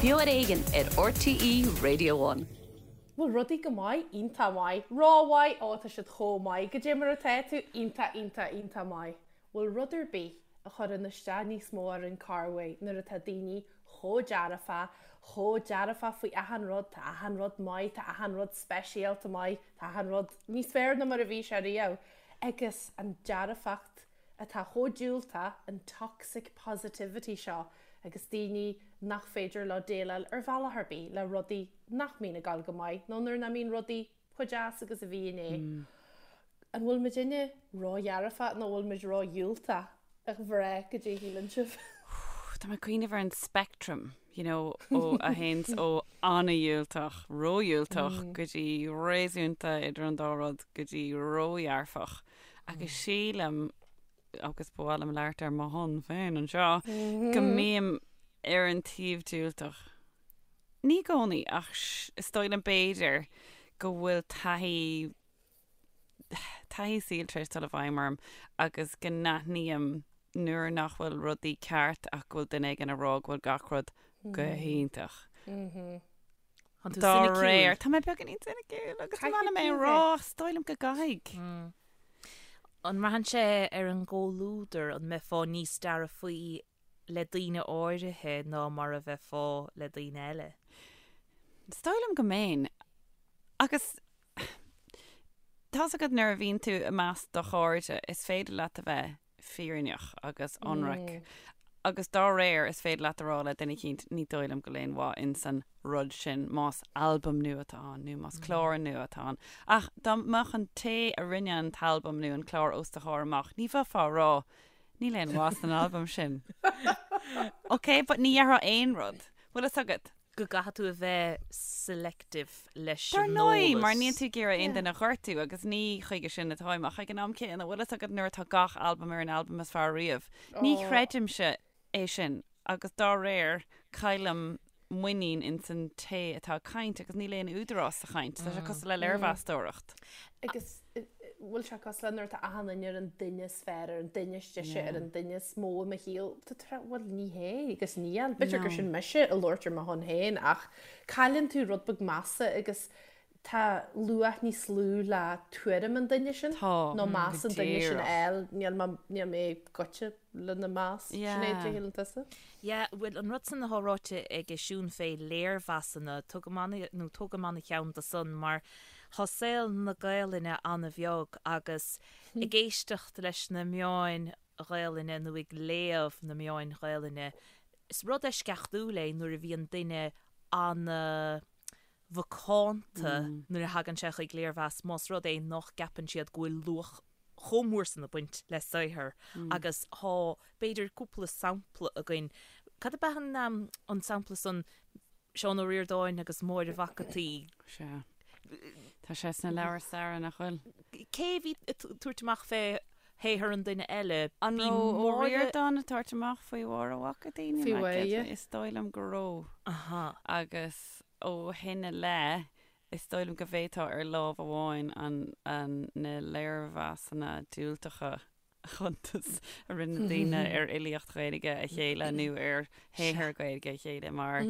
Beo ar Éigean ar RTÉ Radio One. Bhfuil rudaí go maith? Iontach maith. Rómhaith? Ó, tá siad chomh maith. Goidé mar atá tú? Iontach, iontach, iontach maith. Bhfuil rud ar bith a chuireann isteach níos mó ar an corrmhaith nuair atá daoine chomh dearfach, chomh dearfach faoi achan rud, tá achan rud maith, tá achan rud speisialta maith, tá achan rud níos fearr ná mar a bhí sé riamh. Agus an dearfacht atá chomh diúltach, an toxic positivity seo agus daoine nach féidir leo déileáil ar bhealach ar bith le rudaí nach mbíonn ag dul go maith nó nuair nach mbíonn rudaí chomh deas agus a bhí inné. An bhfuil muidinne ródhearfach nó an bhfuil muid ródhiúltach, a mhná, goidé a shíleann sibh? Tá mé ag cuimhneamh ar an spectrum, you know, ó a théanns ó an-dhiúltach, ródhiúltach go dtí réasúnta idir an dá rud go dtí ródhearfach. Agus sílim, agus ba mhaith liom labhairt ar mo shon féin anseo, go mbím ar an taobh diúltach. Ní i gcónaí, ach is dóigh liom b'fhéidir go bhfuil taithí, taithí saoil tar éis dul i bhfeidhm orm agus go n-aithním nuair nach bhfuil rudaí ceart ach go bhfuil duine éigin ag rá go bhfuil gach rud go hiontach. Tá tú Dá soiniciúil. réir, tá mé beagáinín soiniciúil agus tá mé ag rá, is dóigh liom go gcaithfidh. An mbraitheann sé ar an gcomhluadar, an mbeifeá níos dearfaí le daoine áirithe ná mar a bheifeá le daoine eile? Is dóigh liom go mbeinn. Agus tá's agat nuair a bhíonn tú i measc do chairde, is féidir leat a bheith fírinneach agus ionraic agus dá réir is féidir leat a rá le duine eicínt ní dóigh liom go bhfuil aon mhaith ins an rud sin más albam nua atá ann nó más clár nua atá ann. Ach dá mbeadh an té a rinne an t-albam nó an clár os do chomhair amach ní bheifeá a rá níl aon mhaith san albam sin. Ok, but ní dhéarfá aon rud. Bhfuil fhios agat? go gcaithfidh tú a bheith selective leis Dar an ndóigh, eolas. mar níl tú ag iarraidh aon duine a ghortú agus ní chuige sin atáim ach ag an am céanna, bhfuil fhios agat nuair atá gach albam ar an albam is fearr riamh, ní chreidimse é sin agus dá réir caillim muinín ins an té atá ag caint agus níl aon údarás sa chaint. Tá sé cosúil le léirmheastóireacht. Agus bhfuil sé cosúil le nuair atá achan duine ar an duine is fearr, ar an duine is deise, ar an duine is mó i mo shaol. Tá tú ag rá, bhuel ní hé agus níl. B'fhéidir gur sin mise ag labhairt ar mo shon féin ach cailleann tú rud beag measa agus tá luach níos lú le tuairim an duine sin Tá, nó meas go an duine sin a díreach. fháil. Níl mé, níl mé goite lena meas. Yeah. Sinéad, cad a shíleann tusa? Yeah, bhuel an rud san atá ráite ag Siún fé léirmheasanna, tugaim ana, nó tógaim ana cheann de san mar Tá saol na Gaelainne an-bheag agus ag éisteacht leis na meáin Ghaelainne nó ag léamh na meáin Ghaelainne, is rud eisceachtúil é nuair a bhíonn duine ana-mhacánta nuair a thagann sé chuig léirmheas más rud é nach gceapann siad go bhfuil luach chomh mór san ag baint le saothar agus tá b'fhéidir cúpla sampla againn. Cad ab ea an sampla san Seán Ó Ríordáin agus Máire Mhac an tSaoi. Sea. Tá sé sna leabhair staire, nach bhfuil? Cé a bhí ag tabhairt amach fé shaothar an duine eile? An Bhí raibh Ó Máire. Ríordáin ag tabhairt amach faoi Mháire Mhac an tSaoi? Níl Faoi mé Mháire. cinnte. Is dóigh liom go raibh. Aha. Agus ó shin i leith, is dóigh liom go bhféadfá ar lámh amháin an, an, na léirmheasanna diúltacha chuntas a rinne daoine ar fhilíocht Ghaeilge a chéile nó ar shaothar Gaeilge a chéile mar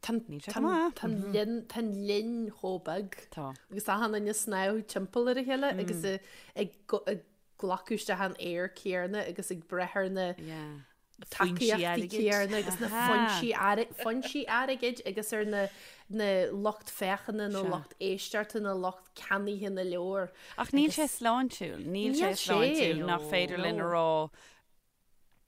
níl sé go maith. Tá an linn chomh beag. Tá. Agus achan duine ag snámh timpeall ar a chéile agus ag glacadh isteach an aer céanna agus ag breith ar na tacaíochtaí céanna agus na foinsí foinsí airgid agus ar na na lucht féachana nó lucht éisteachta nó lucht ceannaithe na leabhar. Ach níl sé sláintiúil, níl sé sláintiúil nach féidir linn a rá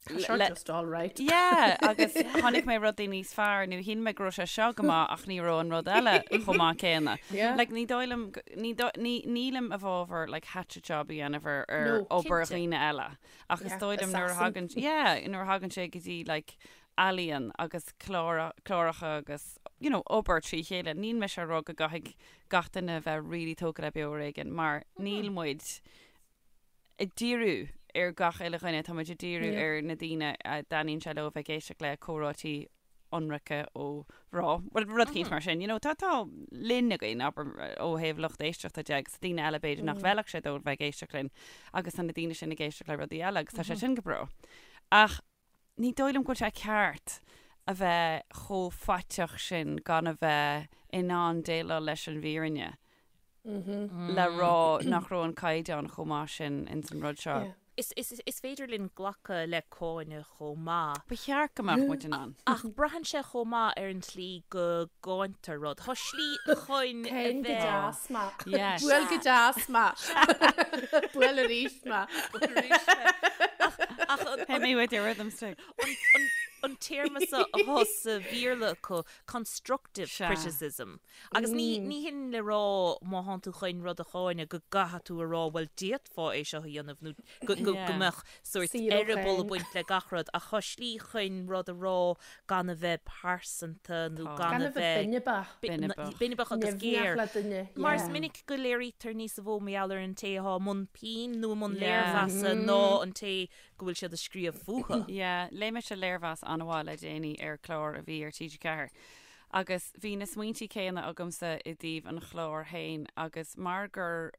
Tá seo just all right. Yeah, agus chonaic mé rudaí níos fearr nó shíl mé go raibh sé seo go maith ach ní raibh an rud eile chomh maith céanna. Like ní dóigh liom, ní nílim i bhfabhar like hatchet job a dhéanamh ar ar obair dhaoine eile. Ach is dóigh liom nuair a thagann, yeah, nuair a thagann sé go dtí like ealaíon agus clár, cláracha agus you know obair trí chéile, níl mise ag rá go gcaithfidh gach duine a bheith really tógtha le Beo Ar Éigean mar níl muid ag díriú ar gach uile dhuine, tá muid ag díriú ar na daoine a dtaitníonn sé leo a bheith ag éisteacht le comhráití ionraice ó mhná, bhuel, rud eicínt mar sin, you know, tá, tá linn againn, abair, ó thaobh lucht éisteachta de agus daoine eile b'fhéidir nach bhfeilfeadh sé dóibh bheith ag éisteacht linn agus tá na daoine sin ag éisteacht le rudaí eile agus tá sé sin go breá. Ach ní dóigh liom go bhfuil sé ceart. a bheith chomh faiteach sin gan a bheith in ann déileáil leis an bhfírinne le rá nach raibh an caighdeán chomh maith sin ins an rud seo. Is, is, is féidir linn glacadh le cáineadh chomh maith. Ba cheart go mbeadh muid in ann. Ach braitheann sé chomh maith ar an tslí go gcáintear rud. Tá slí chun a Cáin go bheith. deas mé. Yes. Buail go deas mé. Buail arís mé. Buail arís mé. Ach, ach an, Hit me with your rhythm stick. an, an, an téarma seo atá sa Bhéarla acu, constructive Sea. criticism. Agus ní, ní hin le rá má thánn tú chun rud a cháineadh go gcaithfidh tú a rá bhuel d'fhéadfá é seo a dhéanamh nó go, go, go Yeah. mbeadh sórt Saor ó eireaball ag chéin. baint le gach rud ach tá slí chun rud a rá gan a bheith pearsanta nó Tá. gan Gan a a bheith bheith binibeach. Binibeach. binibeach agus Nimhneach géar. le duine. Mar is Yeah. minic go léirítear níosa mhó mar gheall ar an té atá i mbun pinn nó i mbun Yeah. léirmheasa ná an té go bhfuil siad ag scríobh fúthu. Yeah, léigh mise léirmheas an-mhaith le déanaí ar chlár a bhí ar TG4 agus bhí na smaointí céanna agamsa i dtaobh an chláir féin agus mar gur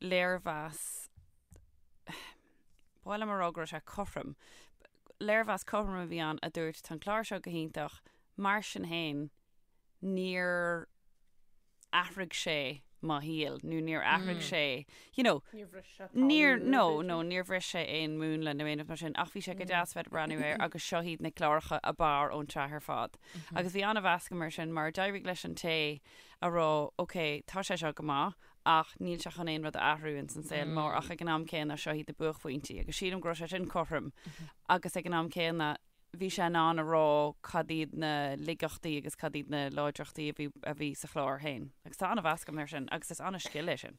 léirmheas, ba mhaith liom a rá go raibh sé cothrom, léirmheas cothrom a bhí ann a dúirt tá an clár seo go hiontach, mar sin féin níor athraigh sé mo shaol nó níor athraigh sé, you know, Níor bhris sé talamh Níor, nó no, b'fhéidir. no, níor bhris sé aon múnla nó aon rud mar sin, ach bhí sé go deas bheith ag breathnú air agus seo iad na cláracha ab fhearr ón tsraith ar fad. Agus bhí an-mheas agam air sin mar d'éirigh leis an té a rá, ok, tá sé seo go maith ach níl sé chun aon rud a athrú ins an saol mór ach ag an am céanna seo iad na buaicphointí agus sílim go raibh sé sin cothrom agus ag an am céanna bhí sé in ann a rá cad iad na laigeachtaí agus cad iad na láidreachtaí a bhí, a bhí sa chlár féin. Agus tá an-mheas agam air sin agus is an-scil é sin.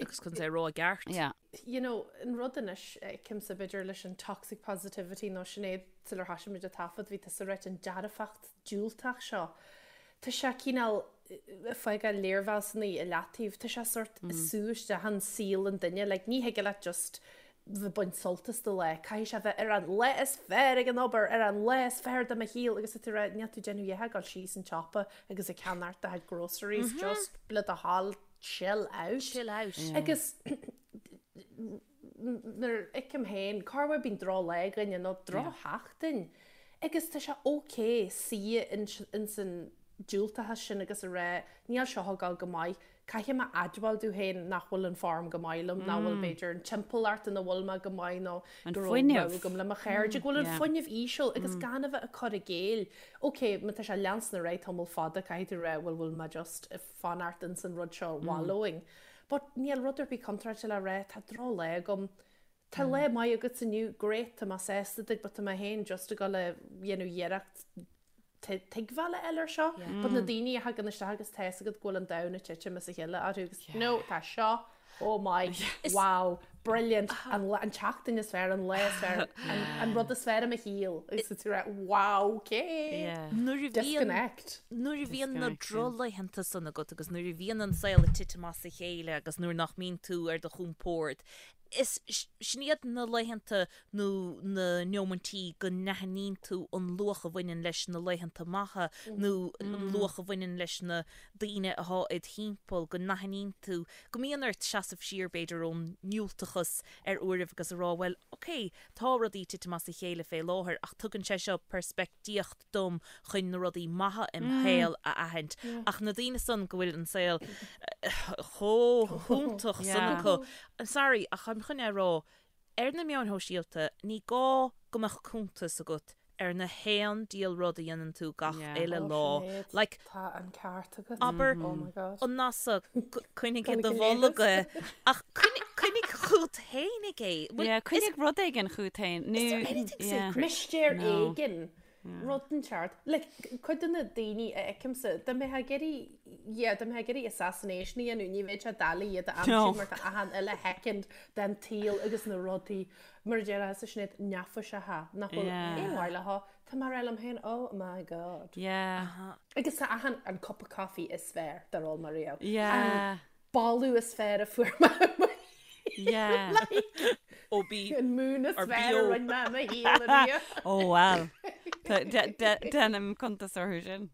Agus chun é a rá i gceart. Yeah. You know, an rud anois, feicimse b'fhéidir leis an toxic positivity nó Sinéad sular thoisigh muid ag taifead, bhí tusa ag ráit an dearfacht diúltach seo. Tá sé cineál ag fágáil léirmheasanna i leataobh, tá sé sort ag sú isteach in saol an duine, like ní thig leat just bheith ag baint sult as do lá, caithfidh sé bheith ar an lá is fearr ag an obair, ar an lá is fearr de mo shaol agus tá tú ag rá, níl tú ag déanamh a dhath ach dul síos an tsiopa agus ag ceannacht do chuid groceries, just le do thoil, chill out. Chill out. Agus nuair a fheicim féin, corruair bíonn droch-lá againne nó drochsheachtain agus tá sé ok suí ins an diúltachas sin agus a rá níl seo ag dul go maith, caithfidh mé admháil domh féin nach bhfuil an form go maith liom, nach bhfuil b'fhéidir an timpeallacht ina bhfuil mé go maith nó An go raibh fuinneamh. rogha agam le mo chairde, go bhfuil an Yeah. fuinneamh íseal agus gan a bheith ag cur i gcéill. Ok, má tá sé ag leanstan ar aghaidh tamall fada caithfidh tú rá bhuel bhfuil mé just ag fanacht ins an rud seo wallowing. But níl rud ar bith contráilte le rá tá droch-lá agam, tá lá maith agat inniu, great, tá mé sásta duit but tá mé féin just ag dul a dhéanamh iarracht tuigbheáil a fháil air seo. But na daoine a thagann isteach agus tá fhios agat go bhfuil an domhan ag titim as a chéile orthu agus no, tá seo oh my, wow, brilliant, an lá, an tseachtain is fearr, an lá is fearr, an, an rud is fearr i mo shaol. Agus tá tú ag rá, wow, okay. Yeah. Nuair a bhíonn Disconnect. Nuair a bhíonn na Disconnect, yeah. drochlaethanta san agat agus nuair a bhíonn an saol ag titim as a chéile agus nuair nach mbíonn tú ar do chompord, is sin iad na laethanta nó na neomaintí go n-aithníonn tú an luach a bhaineann leis na laethanta maithe nó an luach a bhaineann leis na daoine atá id thimpeall, go n-aithníonn tú go mbíonn ort seasamh siar b'fhéidir ón ndiúltachas ar uairibh agus a rá bhuel, ok, tá rudaí ag titim as a chéile fé láthair ach tugann sé seo peirspictíocht dom chun na rudaí maithe im shaol a aithint. Ach na daoine san go bhfuil an saol chomh hiontach san acu, I'm sorry ach táim chun é a rá, ar na meáin shóisialta ní gá go mbeadh cuntas agat ar na haon diabhal rud a dhéanann tú gach uile lá. Like, Tá an ceart agat. abair, Oh my God. an NASA, coinnigh i do bholg é, ach coinnigh chugat fhéinig é. Yeah, coinnigh rud éigin chugat féin. Is there anything sacred? Mistéir éigin. Rud inteacht. Like, cuid de na daoine a fheicimse, dá mbeifeá ag iarraidh, yeah, dá mbeifeá ag iarraidh assassination a dhéanamh, ní bheadh sé doiligh iad a aimsiú mar tá achan uile shoicind den tsaol agus na rudaí, mar a déarfá a Sinéad, neafaiseacha, nach bhfuil aon mhaith leo, tá mé ag rá liom féin, oh my God. Yeah. Agus tá achan, an cup of coffee is fearr dár ól mé riamh. Yeah. An boladh is fearr a fuair mé. Yeah. Like, Ó bí. an mún is Or fearr a BO. rinne mé i mo shaol ariamh. Ó well. Déanaim cuntas orthu sin.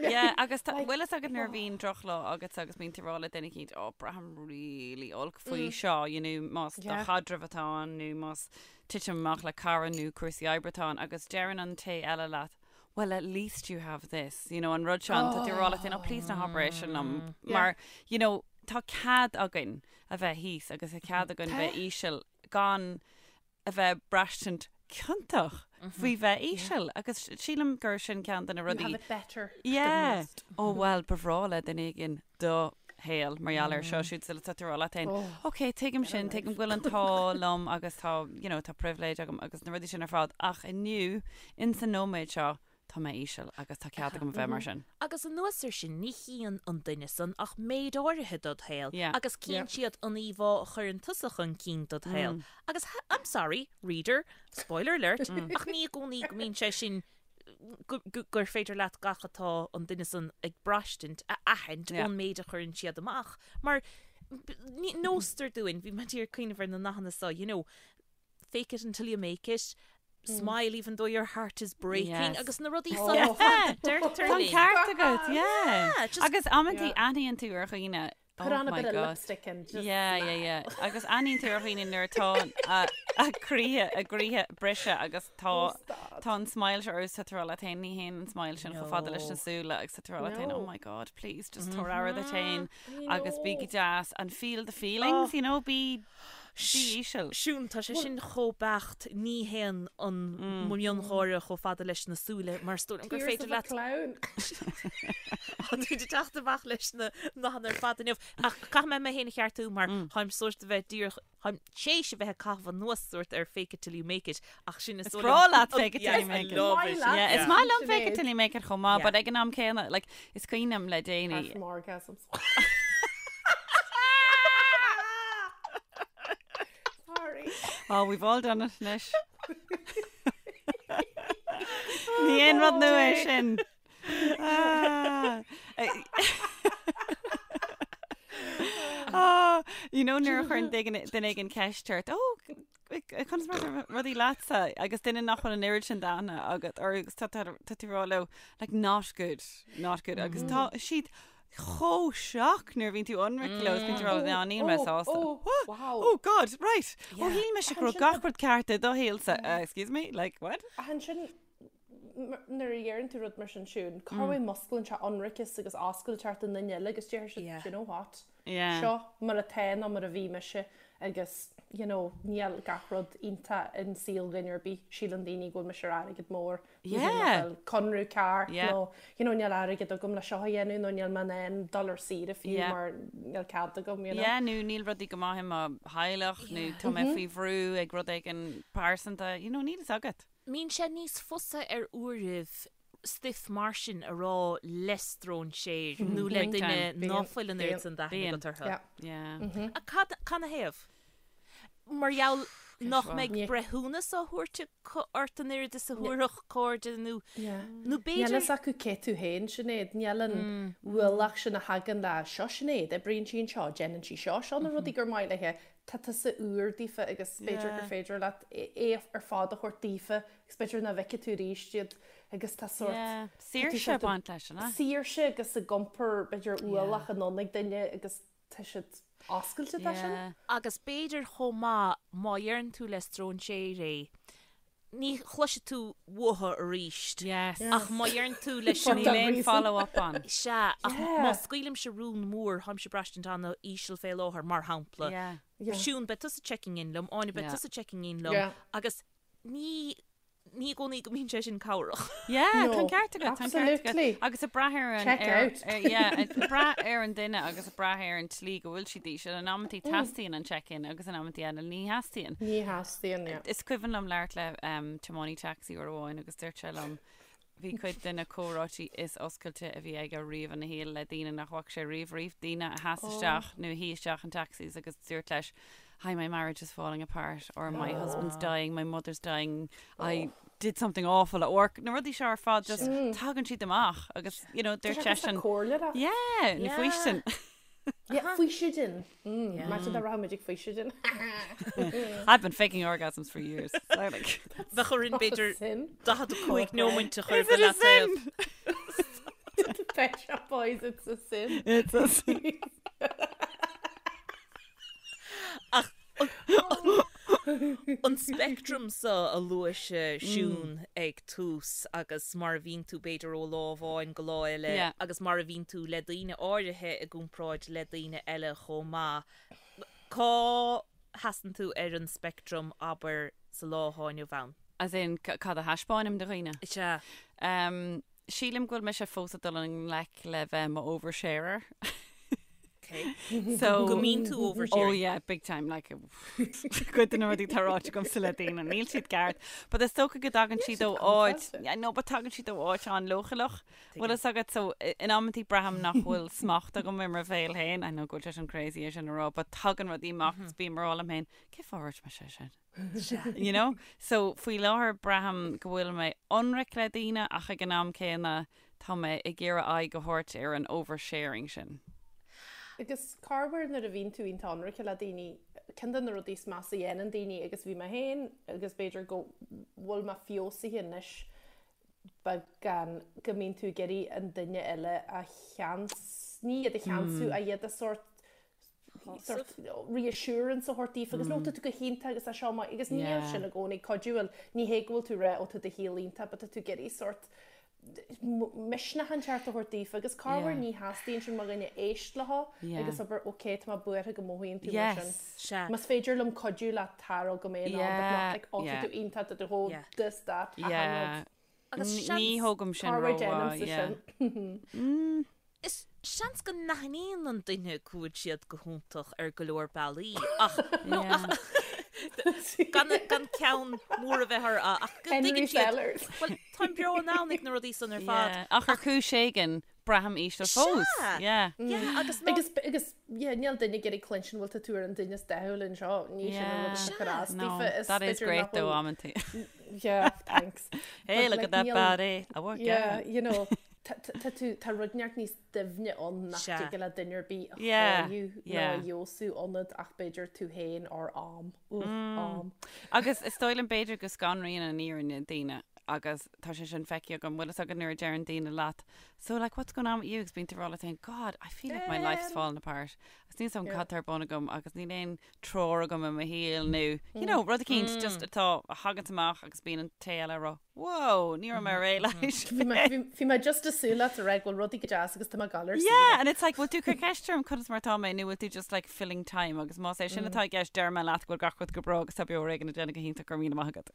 Yeah, agus tá- bhfuil fhios agat nuair a bhíonn drochlá agat agus bíonn tú ag rá le duine eicínt, ó, braithim really olc faoi seo, you know, más do Yeah. chaidreamh atá ann nó más titim amach le cara nó cúrsaí oibre atá ann agus deireann an té eile leat, well at least you have this, you know, an rud seo, tá tú ag rá leat féin, oh please ná habair é sin liom, mar, you know, tá cead againn a bheith thíos agus tá cead againn bheith íseal gan a bheith braistint ciontach faoi bheith íseal agus sílim gur sin ceann de na rudaí. You have it better than most. Yeah. Ó bhuel, ba bhreá le duine éigin do shaol mar gheall air seo siúd sula tá tú ag rá leat féin, ok, tuigim sin, tuigim go bhfuil an t-ádh liom agus tá, you know, tá pribhléid agam agus na rudaí sin ar fad ach inniu, in san nóiméad seo, tá mé íseal agus tá cead agam a bheith mar sin. Agus anuas air sin, ní chíonn an duine san ach méid áirithe dod shaol agus cíonn siad an íomhá a chuireann tusa chun cinn dod shaol. Agus, I'm sorry, reader, spoiler alert, ach ní i gcónaí go mbíonn sé sin, gur féidir leat gach atá an duine san ag braistint a aithint ón méid a chuireann siad amach. Mar nóstar dúinn, bhí mé ag cuimhneamh ar na nathanna seo, you know, fake it until you make it, smile even though your heart is breaking agus na rudaí san ar fad a deirtear linn. Tá an ceart agat, yeah. Agus amantaí aithníonn tú ar dhaoine Put on a bit of lipstick and just Yeah, yeah, yeah. Agus aithníonn tú ar dhaoine nuair atá a gcroíthe, a gcroíthe briste agus tá tá an smile seo orthu tá tú ag rá leat féin, ní théann an smile sin chomh fada leis na súile agus tá tú ag rá leat féin, oh my god, please, just tabhair aire duit féin agus bí go deas and feel the feelings, you know, bí Bí íseal. Siún, tá sé sin chomh beacht, ní théann an miongháire chomh fada leis na súile mar is dóigh liom gur féidir leat. Tears of a clown. Tá tú ag teacht amach leis na nathanna ar fad inniu. Ach caithfidh mé mé féin a cheartú mar táim sórt a bheith díreach, táim théis a bheith ag caitheamh anuas sórt ar fake it till you make it ach sin is dóigh liom. Is breá leat fake it till you make it. Yeah, is maith liom fake it till you make it chomh maith, but ag an am céanna, like, is cuimhin liom le déanaí. Apart from orgasms. Sorry. Oh, we've all done it anois. Ní aon rud nua é sin. Ah. Ah, you know nuair a chuireann duine éigin ceist ort, oh, conas mar atá rudaí leatsa agus duine nach bhfuil an oiread sin d'aithne agat orthu agus tá tá tú ag rá leo like not good, not good agus tá siad chomh shocked nuair a bhíonn tú ionraic leo is bíonn tú ag rá ná níl mé sásta. Oh, What? wow. Oh God, right. Ó shíl mise go raibh gach rud ceart i do shaolsa. Uh, excuse me, like what? Ach ansin nuair a dheireann tú rud mar sin Siún, cá bhfuil musclaíonn sé ionraiceas agus oscailteacht an duine eile agus deir siad, do you know what? Yeah. Seo mar atá nó mar a bhí mise agus you know níl gach rud iontach in saol dhuine ar bith, síleann daoine go bhfuil mise ar airgead mór, níl mé Yeah. fáil conradh ceart Yeah. nó you know níl airgead agam le seo a dhéanamh nó níl mé in ann dul ar saoire fiú Yeah. mar níl cead agam, you know. Yeah, nó níl rudaí go maith i mo theaghlach nó tá mé faoi bhrú ag rud éigin pearsanta, you know, níl fhios agat. Mbíonn sé níos fusa ar uairibh stuif mar sin a rá le stróinséir nó le duine ná fuil an oiread san d'aithne agat orthu. Ach cad canathaobh? Mar gheall nach mbeidh breithiúnas á thabhairt acu ort an oiread is a thabharfadh cairde nó nó b'fhéidir. Níl fhios acu cé tú féin, Sinéad. Níl an ualach sin a thagann le seo Sinéad, oibríonn sí anseo, déanann sí seo, seo na rudaí gur maith léi. Tá tusa úr daofa agus b'fhéidir gur féidir leat é ar fad a thabhairt daofa agus b'fhéidir nach bhfeicfidh tú arís iad agus tá sórt Saoirse ag baint leis, an ea? Saoirse agus ag iompar b'fhéidir ualach anonn ag duine agus tá siad oscailte dá sin. Agus b'fhéidir chomh maith má dheireann tú le stróinséir é, ní chloisfidh tú uathu arís. Yes. Ach má dheireann tú leis an. Níl aon follow up ann. Sea, ach má scaoilimse rún mór, táimse ag braistint an-íseal fé láthair, mar shampla. Yeah. Siún, beidh tusa checking in liom, Áine, beidh tusa checking in liom, agus ní ní i gcónaí go mbíonn sé sin cabhrach. Yeah, tá an ceart agat, tá an ceart agat. Absolutely. Agus ag brath ar an Check ar, out. ar, yeah, ag brath ar an duine agus ag brath ar an tslí go bhfuil siad íseal. In amantaí teastaíonn an check-in agus in amantaí eile ní theastaíonn. Ní theastaíonn, yeah. Is cuimhin liom labhairt le um, tiománaí taxi uair amháin agus dúirt sé liom bhí cuid de na comhráití is oscailte a bhí aige riamh ina shaol le daoine nach bhfaca sé riamh riamh, daoine a sheas isteach nó a shuigh isteach in taxis agus dúirt leis Hi, my marriage is falling apart or my husband's dying, my mother's dying, I did something awful at work. Na rudaí seo ar fad just tagann siad amach agus you know dúirt seisean Comhairleoireacht. Yeah, nó faoistin. Yeah, faoistin. Imagine dá rachadh muid ag faoistin. I've been faking orgasms for years. So like, Bheadh orainn b'fhéidir Sin. 45 nóimint a chur Is it a sin? Pet Shop Boys, it's a sin. It's a sin. Ach An speictream so a luaigh Siún ag tús agus mar a bhíonn tú b'fhéidir ó lá amháin go lá eile agus mar a bhíonn tú le daoine áirithe i gcomparáid le daoine eile chomh maith. Cá sheasann tú ar an speictream, abair, sa lá atá inniu ann? As in, cad a thaispeáinim do dhaoine? Sea. Sílim go bhfuil mise fós ag dul i ngleic le bheith i mo oversharer. Okay. So, Go mbíonn tú oversharing. Oh yeah, big time, like, cuid de na rudaí atá ráite agamsa le daoine, níl siad ceart. But is dócha go dtagann siad ó áit, yeah, no, but tagann siad ó áit an-leochaileach. Bhfuil fhios agat, so, in amantaí braithim nach bhfuil smacht agam ar mo bhéal féin, I know go bhfuil sé sin crazy é sin a rá, but tagann rudaí amach agus bím ag rá liom féin, cén fáth a ndúirt mise é sin? You know? So, faoi láthair braithim go bhfuil mé ionraic le daoine ach ag an am céanna tá mé ag iarraidh aghaidh a thabhairt ar an oversharing sin. Agus corruair nuair a bhíonn tú iontach ionraic le daoine, ceann de na rudaí is measa a dhéanann daoine agus bhí mé féin agus b'fhéidir go bhfuil mé feabhsaithe anois beagán go mbíonn tú ag iarraidh an duine eile a cheans, ní iad a cheansú, ach iad a sórt sort reassurance a thabhairt daofa agus no tá tú go hiontach agus tá seo maith agus níl sin i gcónaí cuidiúil ní hé go bhfuil tú ag rá ó tá do shaol iontach but tá tú ag iarraidh sort misneach inteacht a thabhairt daofa agus corruair ní theastaíonn sin mar dhuine éist leo agus abair ok tá mé buartha go mothaíonn tú mar sin. Sea. Más féidir liom cuidiú leat tá go mbeidh in ann but not like ó tá tú iontach tá tú chomh this that achan rud. Agus seans. Ní thógaim sin Corruair rómhaith, déanaimse yeah. sin. Is seans go n-aithníonn an duine go bhfuil siad go hiontach ar go leor bealaí ach no ach gan gan ceann mór a bheith orthu ach go Henry dtuigeann siad Sellers. Bhuel táim beo in ann ag na rudaí san ar fad. Yeah, ach ar chúis éigin braithim íseal fós. Sea! Yeah. Yeah, agus ná. Agus agus yeah, níl duine ag iarraidh cluinstin bhfuil tá tú ar an duine is dathúla anseo, ní sin an rud atá cur as No, daofa, is that is b'fhéidir great nach though, bhfuil amantaí. Yeah, thanks. Hey, But look like at that níl body. I work yeah, out. you know, tá tá tá tú tá rud inteacht níos doimhne ann nach Sea. dtig le duine ar bith a Yeah, chóiriú nó yeah. a fheabhsú ionat ach b'fhéidir tú féin or am. Ugh, am. Agus is dóigh liom b'fhéidir go scanraíonn an fhírinne daoine agus tá sé sin feicthe agam, bhfuil fhios agat nuair a deireann daoine leat, so like what's going on with you agus bíonn tú ag rá leat féin, God, I feel like my life's fallen apart. Agus níl 's agam cad tá ar bun agam agus níl aon treoir agam i mo shaol nó, you know, rud eicínt just atá a thaganns amach agus bíonn an té eile ag rá, whoa, ní raibh mé réidh leis. Bhí mé, bhí, bhí mé just ag súil leat a rá go bhfuil rudaí go deas agus tá mé ag gabháil ar Yeah, saoire. and it's like, bhfuil tú ag cur ceist orm conas mar atá mé nó bhfuil tú just like filling time agus más é sin atá i gceist deir mé leat go bhfuil gach rud go breá agus tá beo ar éigean ag déanamh go hiontach go raibh míle maith agat.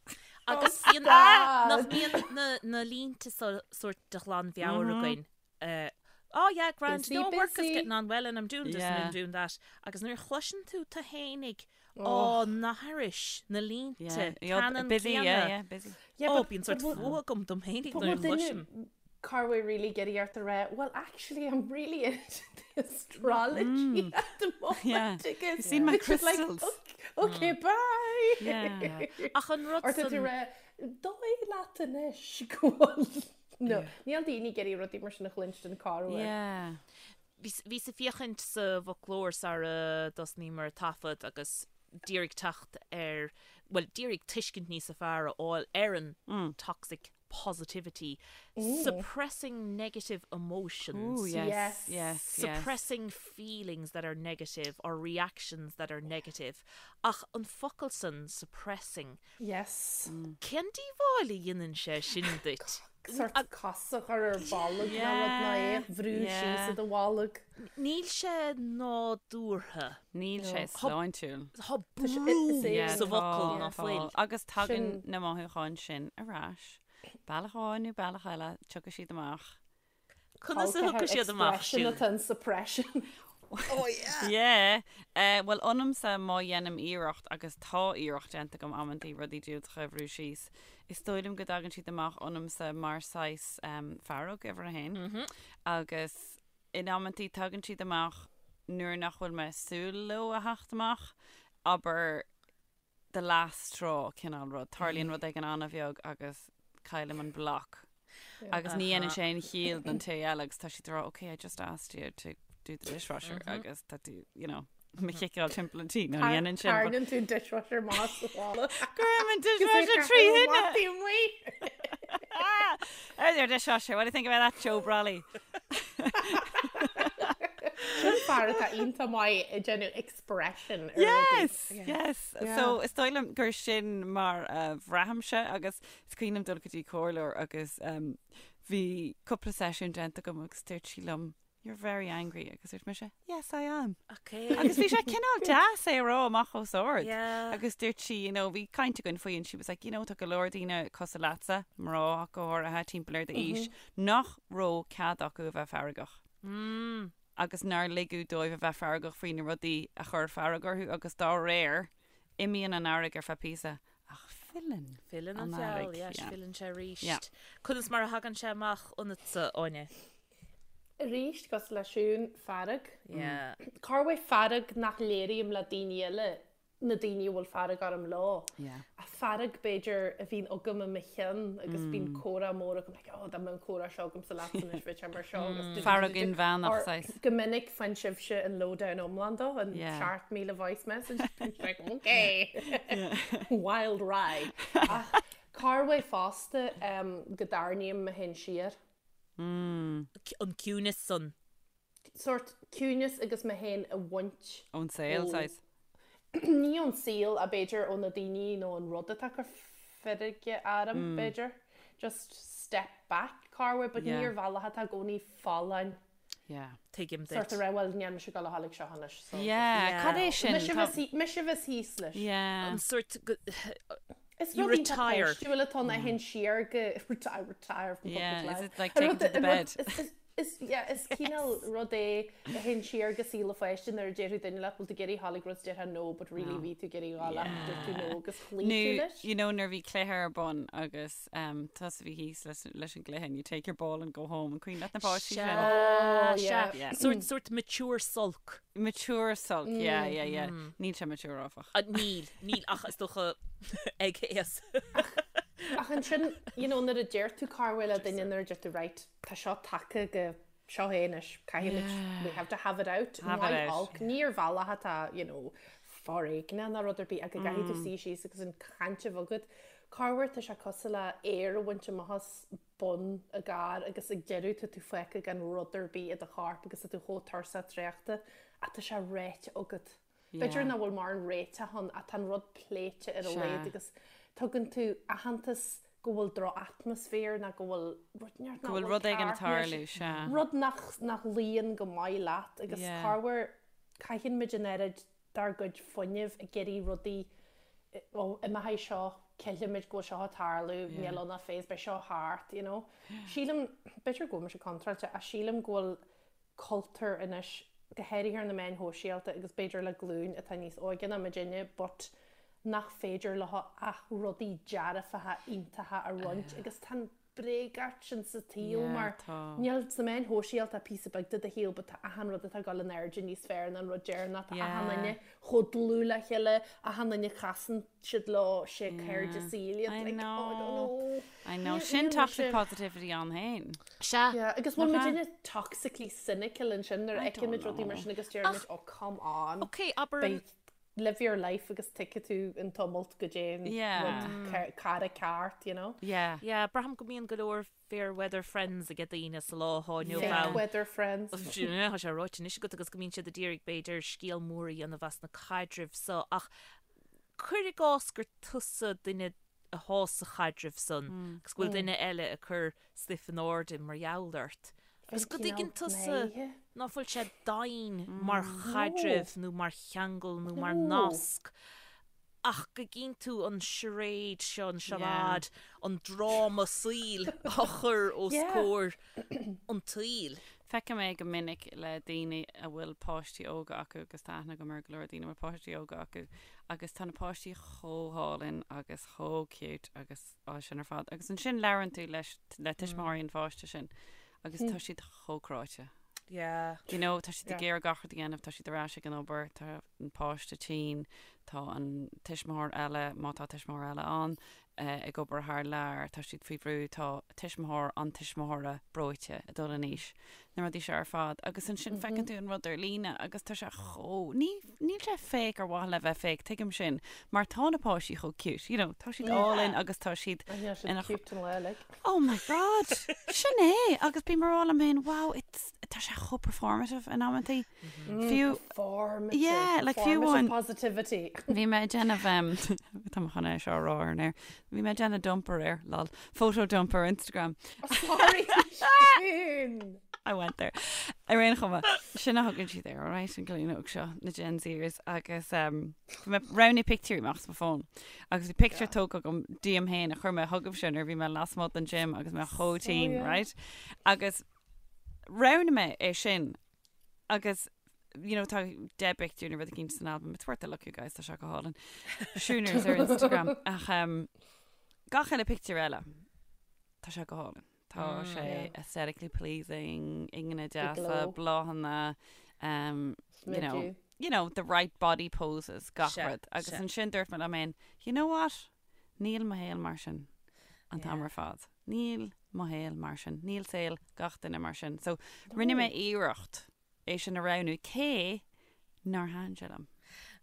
Agus bíonn, nach mbíonn na, na línte so sórt de ghlanmheabhair againn. Uh, oh yeah, grand, Busy, no work is busy. getting on well and I'm doing this and Yeah. I'm doing that. Agus nuair a chloiseann tú tú fhéinig á n-aithris na línte Yeah, yeah, ceannann busy, yeah, céanna. yeah, busy. Yeah, Ó, but- bíonn sórt but bhfuil- fuath agam dom fhéinig but nuair a bhfuil duine chloisim. corruair really ag iarraidh ort a rá, well actually I'm really into the astrology at the moment. Yeah. Agus You've seen my it's just like, crystals. okay, okay, bye. Yeah. Ach an rud Or tá tú san- ag rá, dóigh leat anois go bhfuil. No, níl daoine ag iarraidh rudaí mar sin a chluinstin corruair. Yeah. Bhíos ag féachaint sa bhfoclóir sara dtosnaíomar taifead agus d'iarraidh teacht ar, bhuel, d'iarraidh tuiscint níosa fearr a fháil ar an toxic positivity, suppressing negative emotions. Ooh, yes, Yes. yes, yes. Suppressing feelings that are negative or reactions that are negative. Ach an focal san, suppressing, Yes. cén díobháil a dhéanann sé sin duit? Sort cos a chur ar bolg nó rud ná é a bhrú síos i do bholg. Níl sé nádúrtha. Níl sé sláintiúil. Tá brú sa bhfocal ná fuil. Agus tagann na mothúcháin sin ar ais. Bealach amháin nó bealach eile, tiocfaidh siad amach. Conas a thiocfaidh siad amach, Expression atá in suppression. Oh yeah! Yeah. Eh, bhuel, ionamsa má dhéanaim iarracht, agus tá iarracht déanta agam amantaí rudaí diúltacha a bhrú síos, is dóigh liom go dtagann siad amach ionamsa mar saghas em, fearg, uimhir a haon. Agus in amantaí tagann siad amach nuair nach bhfuil mé ag súil leo a theacht amach, abair the last straw cineál rud. Tarlaíonn rud éigin an-bheag agus caillim an bloc. Agus ní dhéanann sé aon chiall don té eile agus tá siad ag rá, okay, I just asked you to do the dishwasher agus tá tú, you know, mo chiceáil timpeall an tí. No, ní dhéanann sin. Tarraingíonn tú an dishwasher amach sa bhaile. Cuirim an dishwasher trí thine! There's your dishwasher. What do you think about that, Joe Brolly? Sin fear atá iontach maith ag déanamh expression ar rudaí. Yes, yes. So is dóigh liom gur sin mar a bhraithimse agus is cuimhin liom dul go dtí comhairleoir agus bhí cúpla seisiún déanta agam agus dúirt sí liom, You're very angry agus dúirt mise, Yes, I am. Okay. Agus bhí sé cineál deas é a rá amach os ard. Yeah. Agus dúirt sí, you know, bhí caint againn faoi and she was like, you know, tá go leor daoine cosúil leatsa, mná ach go háirithe timpeall ar d'aois, nach raibh cead acu a bheith feargach. Mm. Agus nár ligeadh dóibh a bheith feargach faoi na rudaí a chuir fearg orthu agus dá réir, imíonn an fhearg ar feadh píosa ach filleann Filleann an feall, yes, filleann sé arís. Yeah. Conas mar a thagann sé amach ionatsa, Áine? Arís, cosúil le Siún, fearg. Yeah. Corruair fearg nach léirím le daoine eile, na daoine a bhfuil fearg orm leo. Yeah. Ach fearg, b'fhéidir, a bhíonn agam i mo cheann agus bíonn comhrá mór agam, like, oh, dá mbeadh an comhrá seo agamsa leatsa anois, bheadh sé mar seo agus du- du- Fearg du- du- inmheánach, Or saghas. Go minic faigheann sibhse an lowdown iomlán dó, an Yeah. 7,000 voice message. Like, okay, wild ride. Ach corruair fosta um, go dtarraingím mé féin siar. An ciúnas san. Sórt ciúnas agus mé féin a bhaint. Ón saol, saghas. Ní ón saol ach b'fhéidir ó na daoine nó an rud atá ag cur feirge orm, b'fhéidir. Just step back, corruair, but ní ar bhealach atá i gcónaí folláin. Yeah. Tuigim duit. Sórt a rá, bhuel, níl mise ag dul a ghabháil ag seo anois, so. Yeah, cad é sin? Mise bheas mise bheas thíos leis. Yeah. An sórt Is You rud iontach retire. páistiúil atá ann a théann siar go I retire from public Yeah, is life. it like taken to the bed? Is yeah, is cineál rud é a théann siar go saol an pháiste nuair a déarfadh duine leat bhfuil tú ag iarraidh a ghabháil ag rud déarfá no but really bhí tú ag iarraidh a ghabháil ach dúirt tú no agus chloígh tú Nó, leis. you know, nuair a bhí cluiche ar bun agus um, tusa a bhí thíos leis, leis an gcluiche and you take your ball and go home an cuimhin leat na páistí sin? Oh, Sea, yeah. Yeah. Sórt, sórt mature sulk. Mature sulk, yeah, yeah, yeah. Níl sé mature áfach. Ah, Níl, níl ach is dócha ag aos. Ach ansin, you know, nuair a deir tú corruair le duine nuair a deir tú right, tá seo tagtha go seo é anois, caithfimid, we have to have it out. Have it Maith out. olc, ní ar bhealach atá, you know, foréigneach ná rud ar bith ach go gcaithfidh tú suí síos agus an chaint a bheith agat. Corruair tá sé cosúil le aer a bhaint amach as bun i gcarr agus ag deireadh tá tú fágtha gan rud ar bith i do chorp agus tá tú chomh tuirseach traochta ach tá sé ráite agat. B'fhéidir nach bhfuil mórán réiteach ann ach tá an rud pléite ar a laghad agus tugann tú aitheantas go bhfuil droch-atmaisféar nó go bhfuil rud nach Go bhfuil rud éigin ag tarlú, sea. Rud nach nach luíonn go maith leat agus corruair caitheann muid an oiread dár gcuid fuinnimh ag iarraidh rudaí ó imeoidh seo, cillfimid go bhfuil seo ag tarlú, níl ann ach phase, beidh seo thart, you know. Sílim, b'fhéidir go bhfuil mise contráilte ach sílim go bhfuil cultúr anois, go háirithe ar na meáin shóisialta agus b'fhéidir le glúin atá níos óige ná muidinne, but nach féidir leo ach rudaí dearfacha iontacha a roinnt agus tá an bréagacht sin sa tsaol mar níl sna meáin shóisialta píosa beag de do shaol but tá achan rud atá ag dul in airde níos fearr ná an rud deireanach, tá achan duine chomh dlúth le chéile, achan duine casann siad leo sé cairde saoil iad, like, oh, I don't know. I know. Sin toxic positivity ann féin. Sea. Yeah, agus bhfuil muidinne toxically cynical ansin nuair a fheiceann muid rudaí mar sin agus deirimid, oh, come on. Ok, abair an... Live your life agus tuigfidh tú an tumult go dté an rud cara ceart, you know? Yeah. Yeah, braithim go mbíonn go leor fair weather friends ag daoine sa lá atá inniu ann. Fake weather friends. Tá sé ráite anois agat agus go mbíonn siad ag iarraidh b'fhéidir scéal mór a dhéanamh as na caidrimh so ach cuir i gcás gur tusa duine athá sa chaidreamh san agus go bhfuil duine eile ag cur stuif in airde mar gheall ort. Agus go dtuigeann tusa ná fuil sé daingean mar chaidreamh nó mar cheangal nó mar nasc ach go gcíonn tú an charade seo, an charade, an dráma saoil á chur os comhair an tsaoil. Feicim é go minic le daoine a bhfuil páistí óga acu agus tá aithne agam ar go leor daoine a bhfuil páistí óga acu agus tá na páistí chomh hálainn agus chomh cute agus á sin ar fad agus ansin labhrann tú leis le tuismitheoirí an pháiste sin agus tá siad chomh cráite. Yeah. You know, tá siad ag iarraidh gach rud a dhéanamh, tá siad ar ais ag an obair, tá an páiste tinn, tá an tuismitheoir eile, má tá tuismitheoir eile ann, ag obair thar lear, tá siad faoi bhrú, tá tuismitheoir an tuismitheora breoite ag dul in aois, na rudaí seo ar fad. Agus ansin feiceann tú an rud ar líne agus tá sé chomh, ní, níl sé fake ar mhaithe le bheith fake, tuigim sin, mar tá na páistí chomh cute, you know, tá siad álainn agus tá siad ina. Cute an lá uilig. Oh my God! Sin é! Agus bím ag rá liom féin, wow, it's, tá sé chomh performative in amantaí. Fiú Performative. Yeah, like fiú amháin. Positivity. Bhí mé ag déanamh tá mé chun é seo a rá ar an aer. Bhí mé ag déanamh dump aréir, lol. Photo dump ar Instagram. Sorry, Siún. I went there. Ar aon chuma, sin a thugann siad air, alright, an glúin óg seo, na Gen Zers, agus um, bhí mé roghnú pictiúirí amach as mo fón. Agus bhí pictiúr tógtha agam díom féin a chuir mé chugaibhse nuair a bhí mé lasmuigh den gym agus mé chomh tinn, yeah. right? Agus roghnaigh mé é sin agus you know, tá 10 bpictiúr nó rud éicint san album. It's worth a look, you guys, tá sé go hálainn. Siúners ar Instagram. Ach um, gach eile pictiúr eile, tá sé go hálainn. Tá sé aesthetically pleasing, ingne deasa, glow. bláthanna, um, you know, Smidiú. you know, the right body poses, gach Sea, rud. Agus sea. ansin dúirt mé liom féin, you know what? Níl mo shaol mar sin an t-am ar fad. Níl mo shaol mar sin. Níl saol gach duine mar sin. So rinne mé iarracht é sin a roghnú cé nár thaitin sé liom.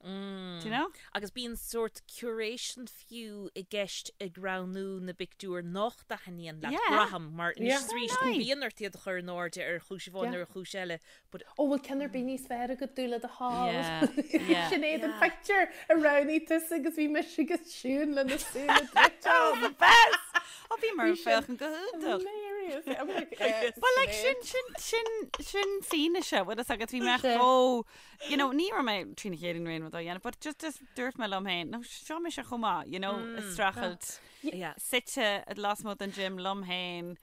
Do you know? Agus bíonn sórt curation fiú i gceist ag roghnú na bpictiúr nach dtaitníonn leat, Yeah. braithim, mar anois Yeah. is arís Aye. bíonn ort iad a chur in airde ar chúis amháin Yeah. nó ar chúis eile, but Ó bhfuil ceann ar bith níos fearr agat dúinn le do thoil. Yeah, yeah. Sinéad an pictiúr a roghnaigh tusa agus bhí mise agus Siún lena súile druidte. Oh, the best! Ó bhí mar Bhí sin féachann go hiontach. Hilarious. I'm like, eh, But like Sinéad. sin sin sin sin fianaise bhfuil fhios agat bhí mé Sea. chomh you know ní raibh mé trína chéile in aon rud á dhéanamh but just just dúirt mé liom féin no seo mise chomh maith you know ag streachailt yeah. suite lasmuigh den gym liom féin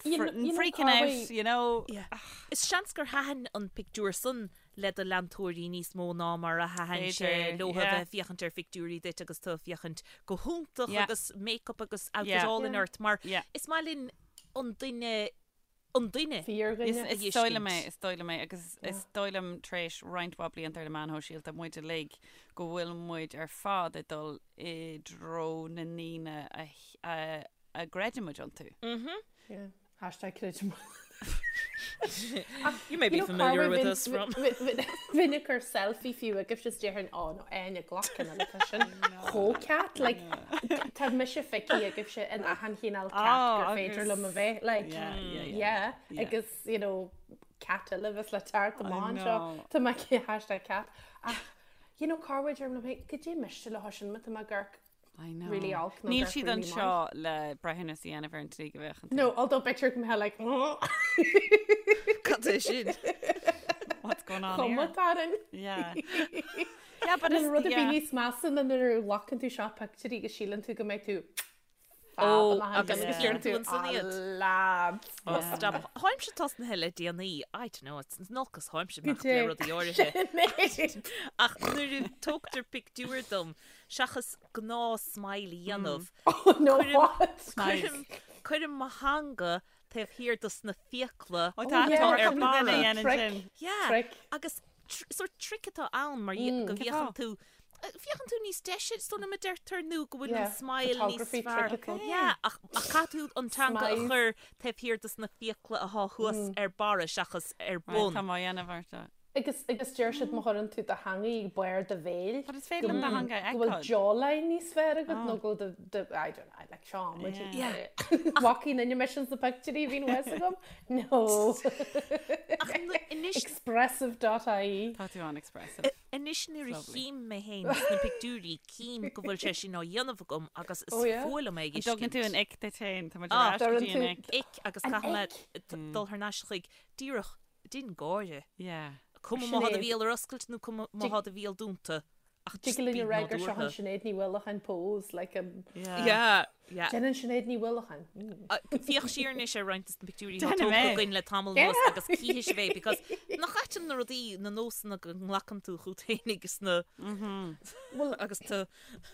You know- you know, freaking out Carly- you know Yeah. Is seans gur thaitin an pictiúr san le do leantóirí níos mó ná mar a thaitin sé B'fhéidir, leo yeah. bheith féachaint ar phictiúirí duit agus tú ag féachaint go hiontach Yeah. agus make-up agus outfit Yeah. álainn Yeah. ort mar Yeah. is maith linn an duine an duine. Fíordhuine. Is a is dóigh liom fheiscint. é, is dóigh liom é agus is dóigh liom tar éis roinnt mhaith blianta ar na meáin shóisialta muid uilig go bhfuil muid ar fad ag dul i dtreo na ndaoine a a a gcreideann muid iontu. Yeah. Hashtag creidim. You may be You know, familiar Carway, with bhí- us from Bhí ag cur selfie fiú agus just déarfainn ó nó aine glacann an tá sin chomh cat like tá mise feicthe agaibhse in achan chineál cat Oh, gur féidir agus- liom a bheith like Yeah, yeah, yeah. yeah Yeah. agus you know cat eile bheas le teacht amach anseo know. tá mé hashtag cat ach you know Carway deirim liom féin goidé miste le sin má tá mé ag amharc I know. really olc nó Níl gur siad really anseo le breithiúnas a dhéanamh ar an tslí go bhféachann tú. No, although picture go mbeadh like Cad é sin? What's going on here? Chuma tarann. Yeah. Yeah, but Níl it's rud a bhí yeah. níos measa ná nuair a ghlacann tú seo pictiúirí agus síleann tú go mbeidh tú Ó, fab amach agus ansin agus yeah. deireann tú tú ansan "Ah, iad." lads. Oh, stop. Tháimse tosnaithe le déanaí. I don't know, it's an olcas tháimse Go nach le dté. rudaí áirithe. Sinéad. Ach nuair a tógtar pictiúr dom, seachas gnáth smile a dhéanamh, Oh, no, Cuirim- what? cuirim cuirim mo theanga taobh thiar dos na fiacla Ó, tá yeah, tá ar ar barra. duine a dhéanann Trick. sin. Yeah. Trick. Agus tr- sort trick atá ann mar mm, go Cén bhféachann fáth? tú eh, féachann tú níos deise so na deirtear nó go bhfuil an Yeah, smile níos photography fearr. trick atá. Yeah, ach ach caithfidh tú an teanga a Smize. chur taobh thiar dos na fiacla atá thuas ar barra seachas ar Right, bun. Tá má dhéanamh ort. Agus agus deir siad má chuireann tú do theanga ag barr do bhéil. But is féidir liom do theanga a Go bhfuil fheiceáil. jawline níos fearr agat nó go bhfuil do do I don't know, like seo muid. Yeah. Walking in your missions na pictiúirí bhíonn fhios agam? No. Ach nu- anois Expressive.ie. Tá tú an-expressive. Anois nuair a Lovely. chím mé féin sna pictiúirí cím go bhfuil sé sin á dhéanamh agam agus is Oh, yeah? fuath liom é An dtugann tú an ick duit féin, tá muid Ah, ar ais go dtugann dtí an tú- ick. Ick agus An caithfidh mé ick. t- dul thar n-ais chuig díreach déan gáire. Yeah. Cuma má thá do Sinéad. bhéal ar oscailt nó cuma má thá do bhéal dúnta. Ach just Tig linn bí a rá gur seo an nádúrtha. Sinéad Ní Uallacháin pose, like um, Yeah. Yeah, yeah. Déanann Sinéad Ní Uallacháin. Mm. Uh, Féach siar anois ar roinnt des na pictiúirí atá Déanfaidh tógtha mé. againn le tamall anuas agus cífidh sibh é because nach ait na rudaí na nósanna go nglacann tú chugat féin agus na Well, agus tú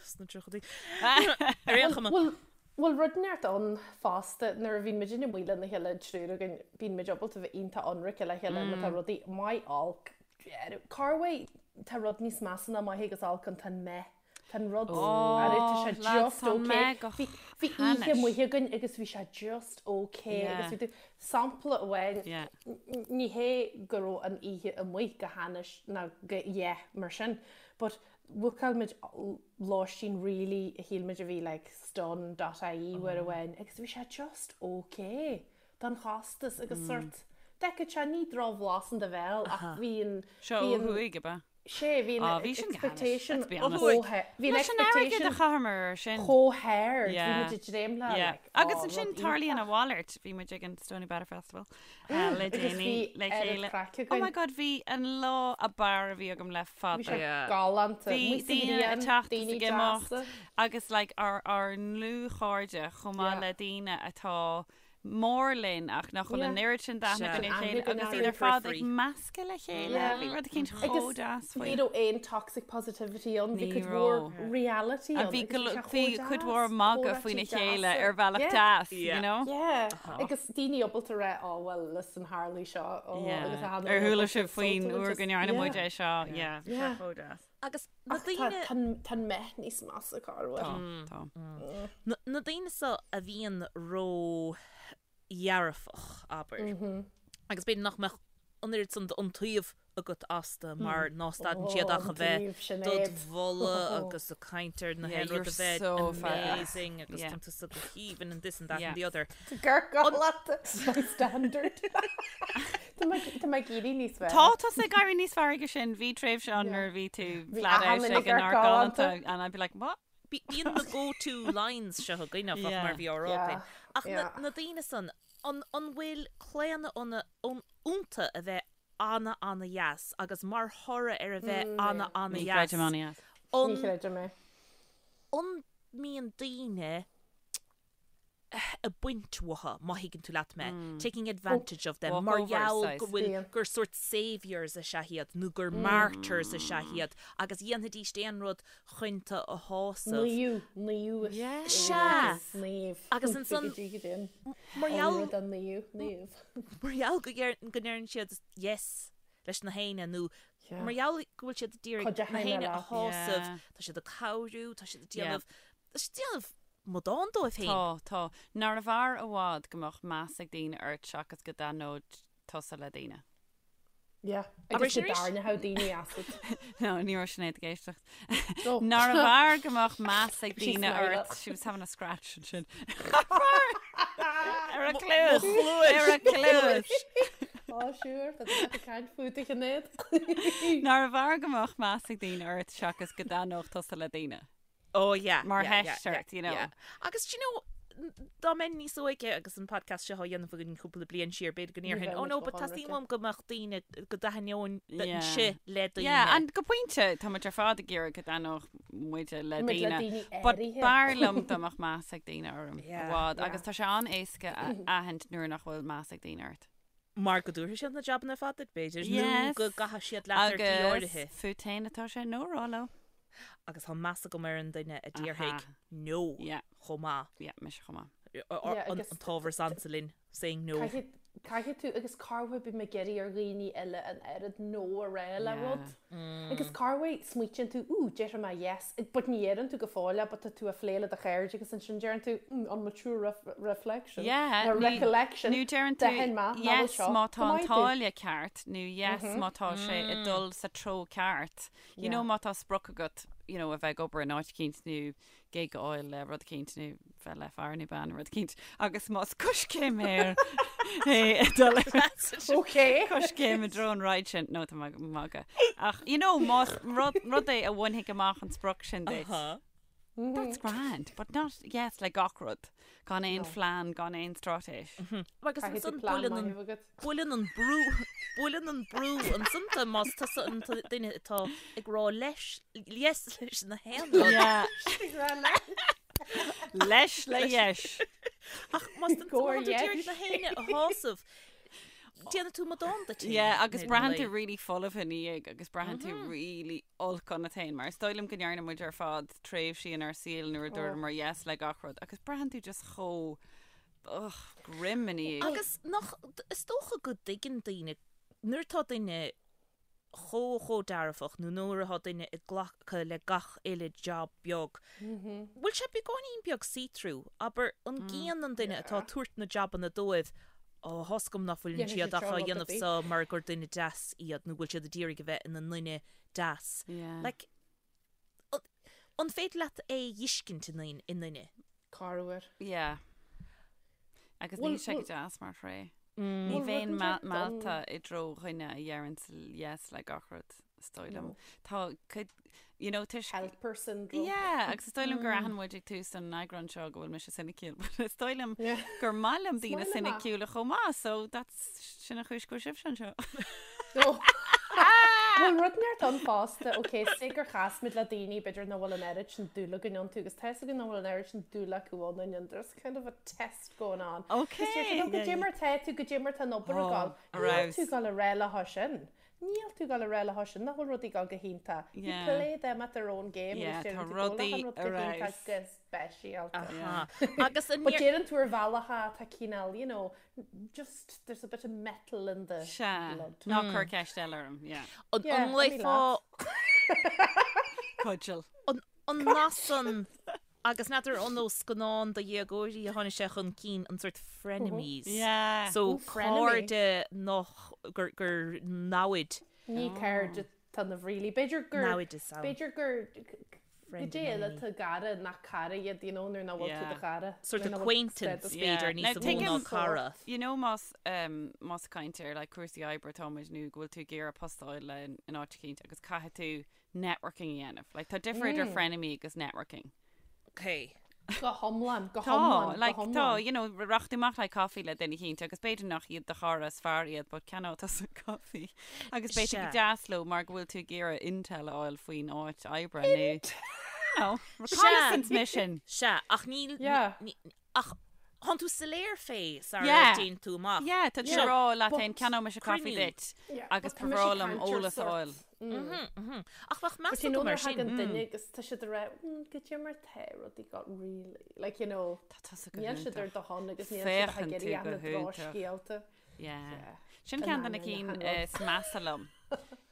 sna tríochaidí. Ar aon chuma. Bhfuil bhfuil rud neart ann fosta nuair a bhíonn muid amuigh lena chéile an triúr againn bíonn muid ábalta bheith iontach ionraic le chéile má tá rudaí maith olc. Carway tá rud níos measa ná maith agus olc an tá an meh. Tá an rud oh, tá sé lads, just tá okay. meh go Bhí bhí oíche hainnis. amuigh againn agus bhí sé just okay Yeah. agus bhí tú sampla amháin Yeah. n- ní hé go raibh an oíche amuigh go hainnis ná go yeah mar sin, but bhookáil muid lóistín really a shíl muid a bhí like stun.ie uair amháin agus bhí sé just okay don chostas agus sort. D'fheicfeadh sé ní drochbhlas in do bhéal ach bhí an Seo ó thuaidh, ab ea? Sé, bhí an expectation chomh bhí an expectation a chaitheamar air sin. chomh hard, bhí muid ag dréim le like, Agus ansin tarlaíonn a mhalairt, bhí muid ag an Stoneybatter Festival le déanaí le chéile. Oh my god, bhí an lá ab fhearr a bhí agam le fada. Bhí sé galánta. Bhí daoine ag teacht is ag imeacht agus like ár ár ndlúthchairde chomh maith le daoine atá mór linn ach nach bhfuil an oiread sin d'aithne againn ar a chéile agus iad ar fad ag meascadh le chéile. Bhí rud eicínt chomh deas faoi. Ní raibh aon toxic positivity ann, bhí cuid mhór reality ann. Bhí cuid mhór magadh faoina chéile ar bhealach deas, you know? Yeah, agus daoine ábalta rá, oh well, listen, tharlaigh seo, oh, agus a Ar chuala sibh faoin uair go ndearna muid é seo, yeah, bhí sé chomh deas. Agus na daoine. Tá an meath níos measa corruair. Tá, tá. Na daoine seo a bhíonn ró-dhearfach, abair, agus b'fhéidir nach mbeadh an oiread san d'iontaoibh agat astu mar ná stadann siad ach a bheith dod mholadh agus ag caint ar na haon rud a bheith amazing agus tá tusa go haoibhinn and this and that and the other. Gur galánta my standard. Tá mé ag éirí níos fearr. Tá tusa ag éirí níos fearr aige sin. Bhí tréimhse ann nuair a bhí tú flat out ag an ár galánta and I'd be like, what? Bíonn na go-to lines seo againn áfach mar bhí á rá againn. Ach na daoine san, an bhfuil claonadh iontu a bheith ana ana dheas agus mar thoradh ar a bheith ana ana Ní dheas, chreidim ana dheas. Ní chreidim é. An mbíonn daoine ag baint uathu, má thuigeann tú leat mé, taking advantage of them, mar gheall go bhfuil, gur sórt saviours is ea iad nó gur martyrs is ea iad agus dhéanfaidís aon rud chun tú a shásamh. Naomh, naomh is Sea! Naomh. Agus ansan, mar gheall, naomh, naomh. Mar gheall go ndeireann siad yes leis na héinne nó mar gheall go bhfuil siad ag iarraidh na héinne a shásamh, tá siad ag cabhrú, tá siad ag déanamh, tá siad ag déanamh amadán dóibh féin. Tá, tá. Nárbh fhearr i bhfad go mbeadh meas ag daoine ort seachas go dtaitneodh tusa le daoine? Yeah. Agus go dtarraingeodh daoine asat. No, ní raibh Sinéad ag éisteacht. Nárbh fhearr go mbeadh meas ag daoine ort? She was having a scratch ansin. Ar a cluas! Ar a cluas! Á, sure, tá tú ag caint fút a Shinéad. Nárbh fhearr go mbeadh meas ag daoine ort seachas go dtaitneodh tusa le daoine? Oh yeah. Mar theist ort, you know. Yeah. Agus do you know, dá mbeinn níos óige agus an podcast seo á dhéanamh againn cúpla bliain siar, b'fhéidir go ndéarfainn, oh no, but teastaíonn uaim go mbeadh daoine, go dtaitneoinnse le daoine. Yeah, and go pointe, tá muid ar fad ag iarraidh go dtaitneodh muide le daoine. But b'fhearr liom dá mbeadh meas ag daoine orm i bhfad. Agus tá sé an-éasca a aithint nuair nach bhfuil meas ag daoine ort. Mar go dtabharfaidh siad na jabanna ar fad duit, b'fhéidir, nó go gcaithfidh siad leat ar shlí áirithe. Agus fút féin atá sé no a rá leo. Agus tá meas agam ar an duine a déarfaidh no chomh maith. Yeah, mise chomh maith. An t-ábhar is ansa linn, saying no. Caithfidh tú, agus corruair bím ag iarraidh ar dhaoine eile an oiread no a rá le rud. Agus corruair smaoitíonn tú, ooh, déarfaidh mé yes, but ní dheireann tú go fóill é, but tá tú ag plé le do chairde agus ansin deireann tú, mm, on mature reflection, nó recollection, nó deireann tú yes má tá an táille ceart, nó yes má tá sé ag dul sa treo ceart. You know má tá sprioc agat you know a bheith ag obair in áit eicínt nó gig a fháil le rud eicínt nó bheith le fear nó bean nó rud eicínt agus más coiscéim é é dul Ok. coiscéim i dtreo an ride sin no tá mé ag magadh ach you know más rud rud é a bhainfidh amach an sprioc sin duit. That's grand, but not yes le gach rud. Gan aon phlean, gan aon straitéis. Agus Caithfidh tú ansan plean buaileann an maith a bheith agat. buaileann an brú buaileann an brú ansan tú más tusa an duine atá ag rá leis yes leis na haon rud. Yeah. Ag rá leis. Leis le yes. Ach más tú Go ag iarraidh yes. na héinne a shásamh, déanann tú amadán duit féin. Yeah, agus ar an braitheann tú lae. really folamh ina dhiaidh agus braitheann tú really olc ionat féin mar is dóigh liom go ndearna muid ar fad tréimhsí inár saol nuair a dúramar yes le gach rud agus braitheann tú just chomh ugh, grim ina dhiaidh. Agus nach, is dócha go dtuigeann daoine, nuair atá duine chomh chomh dearfach nó nuair atá duine ag glacadh le gach uile job beag, bhfuil sé beagáinín beag see-through, abair, an gcíonn an duine atá ag tabhairt na jabanna dóibh, ó, tá's agam nach bhfuileann Dhéanfaidh siad siad ach seo á rud ar dhéanamh bith. so mar gur duine deas iad nó bhfuil siad ag iarraidh a bheith ina nduine deas. Yeah. Like, an féidir leat é a fheiscint i nduine? Corruair. Yeah. Agus Bhfuil- níl sé go bhfuil- deas mar thréith. Ní bheinn meallta i dtreo dhuine a dheireann yes le gach rud, is dóigh liom. Tá cuid, you know, toisc... Helper syndrome. Yeah, agus is dóigh liom gur aithin muid ag tús an eagráin seo go bhfuil mise soiniciúil, but is dóigh liom gur maith liom daoine soiniciúla chomh maith, so that's, sin an chúis go bhfuil sibhse anseo. Bhfuil rud inteacht ann fosta, ok, say gur chas muid le daoine b'fhéidir nach bhfuil an oiread sin dúil againn iontu agus tá fhios againn nach bhfuil an oiread sin dúil acu ionainn and there's kind of a test going on. Ok. Is deir siad, goidé mar tá tú, goidé mar tá an obair ag gabháil. Níl tú ag gabháil a rá leo sin. Níl tú ag gabháil a rá leo sin nach bhfuil rudaí ag gabháil go hiontach. You play them at their own game agus deireann tú go bhfuil achan rud go hiontach go speisialta. Agus an But deireann tú ar bhealach atá cineál, you know, just there's a bit of metal in the Sea. blood. Ná cuir ceist eile orm, yeah. An Yeah, nglaofá Cudgel. an nath san agus n'fheadar an ó scannán do dhéagóirí a tháinig sé chun cinn an sort frenemies. Yeah. So Ooh, frenemy. cairde nach gur gur namhaid. Ní cairde atá ionaibh really. B'fhéidir gur Namhaid is ann. b'fhéidir gur Friend goidé and eile enemy. atá i gcara nach cara iad, you know, nuair nach bhfuil tú Yeah. do chara. Sort Nuair of nach bhfuil acquaintance status. Yeah. b'fhéidir Now, níos mó ná tuigim- cara. You know más um, más caint ar like, cúrsaí oibre atáimid nó go bhfuil tú ag iarraidh post a fháil le in áit eicínt agus caithfidh tú networking a dhéanamh. Like, tá difear idir frenemy agus networking. Ok. Go hiomlán, go Tá, hiomlán, go like, tá, hiomlán. you know, rachaidh tú amach le caife le duine eicínt agus b'fhéidir nach iad do chara is fearr iad, but ceannóidh tusa caife. Agus beidh tú Sea. go deas leo mar go bhfuil tú ag iarraidh intel a fháil faoin áit oibre nó, you know, reconnaissance mission. Sea, ach níl, Yeah. ní, ach thánn tú soiléir fé sara Yeah. dtéann tú amach. Yeah, tá tú Yeah, ag rá leat but- féin ceannóidh mise caife Cruinniú. duit Yeah, agus but tá mise ba bhreá ag liom caint ar eolas a sort. fháil. Ach bheadh meas But you know agam ar nuair a sin. thagann duine agus tá siad ag rá, mm, goidé mar tá rudaí got really, like you know, Tá tusa go níl siad ar hiontach. do shon agus níl siad ag Féachann tú iarraidh go na hiontach. drochscéalta. Yeah. Yeah. Sin An ceann de na ainneoin cinn achan rud. is measa liom.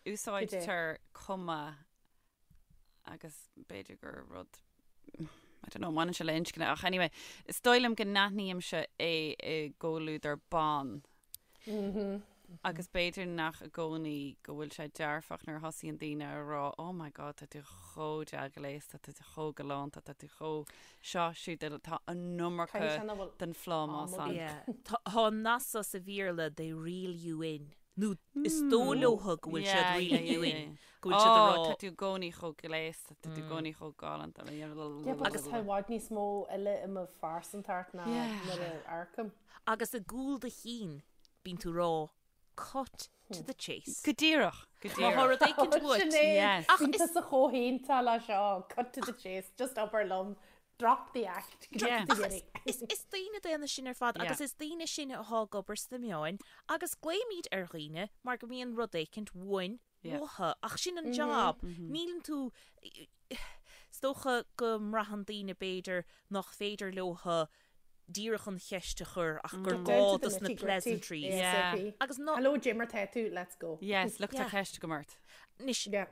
Úsáidtear cuma agus b'fhéidir gur rud I don't know, mbaineann sé le inscne ach anyway, is dóigh liom go n-aithnímse é i gcomhluadar ban. Agus b'fhéidir nach i gcónaí go bhfuil sé dearfach nuair a thosaíonn daoine a rá oh my god tá tú chomh dea-ghléasta, tá tú chomh galánta, tá tú chomh seo siúd tá an iomarca Caithfidh sé nach bhfuil den phlámás am ann. Yeah. Tá tá an nath so sa Bhéarla they reel you in. Nó is dóigh leotha go bhfuil siad Yeah, reel yeah, you yeah, in. yeah. Go bhfuil siad ag Oh, rá tá tú i gcónaí chomh gléasta, tá tú i gcónaí chomh galánta. Yeah, but agus tá i bhfad níos mó eile i mo phearsantacht ná Yeah. nuair a amharcaim. Agus i gcúl do chinn bíonn tú ag rá cut to the chase. Go díreach, go Má tá díreach. rud éicint uait. Sinéad, Yes. Ach bíonn is- tusa chomh hiontach le seo, cut to the chase, just abair liom, drop the act, go Yeah. dtí deireadh. Is, is daoine daonna sinn ar fad Yeah. agus is daoine sinne atá ag obair sna meáin agus glaoimid ar dhaoine mar go mbíonn rud éicint uainn Yeah. uathu ach sin an job. Níleann tú is dócha go mbraitheann daoine b'fhéidir nach féidir leotha díreach an cheist a chur ach gur Down gá to the dos na nitty gritty, pleasantries. Yeah. ASAP. Agus ná Hello, goidé mar tá tú, let's go. Yes, look tá Yeah. ceist agam ort. Anois Yeah.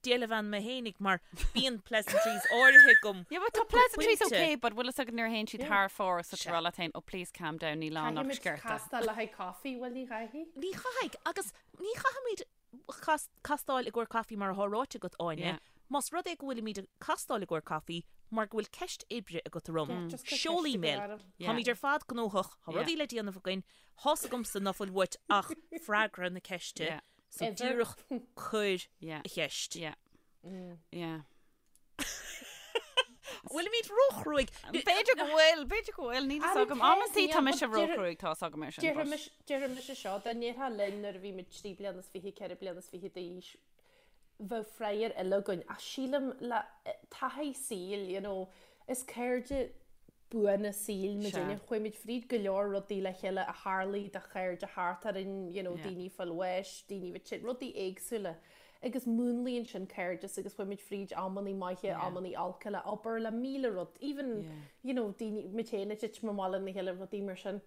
déileann mé fhéinig mar bíonn pleasantries áirithe agam. Yeah, but tá pleasantries Pointe. okay, but bhfuil fhios agat nuair a théann siad thar fóir so tá rá leat féin, oh please calm down, níl ann ach Caithfimid sciorta. castáil le haghaidh coffee, bhfuil ní chaithfidh? Ní chaithfidh agus ní chaithfimid castáil i gcomhair caife mar atá ráite agat Áine, Yeah. más rud é go bhfuilimid ag castáil i gcomhair caife mar go bhfuil ceist oibre agat orm, Yeah, just cuir seol ceist email. agat orm. Yeah. Táimid ar fad gnóthach, tá Yeah. rudaí le déanamh againn, tá's agamsa ná fuil uait ach freagra na ceiste, Yeah. so Ever. díreach cuir Yeah. a cheist. Yeah. Yeah. Bhfuilimid róchruaidh? B'fhéidir go bhfuil, b'fhéidir go bhfuil, níl fhios Ara agam. tá, Amantaí tá níl, mise but deir- róchruaidh, tá's agam ar sin. but- Déarfaimise seo, dá ndéarfá linn nuair a bhí muid 3 bliana is 20, 4 bliana is 20 d'aois, bheadh freagra eile againn. Ach sílim le taithí saoil, you know, is cairde buana saoil muid Sea. inniu. Chuaigh muid fríd go leor rudaí le chéile a tharlaigh do chairde thart orainn, you know, Yeah. daoine ag fáil bháis, daoine a bheith tinn, rudaí éagsúla. Agus múnlaíonn sin cairdeas agus chuaigh muid fríd amannaí maithe, Yeah. amannaí olca le obair, le míle rud, even, Yeah. you know, daoine, muid féin ag titim amach lena chéile, rudaí mar sin.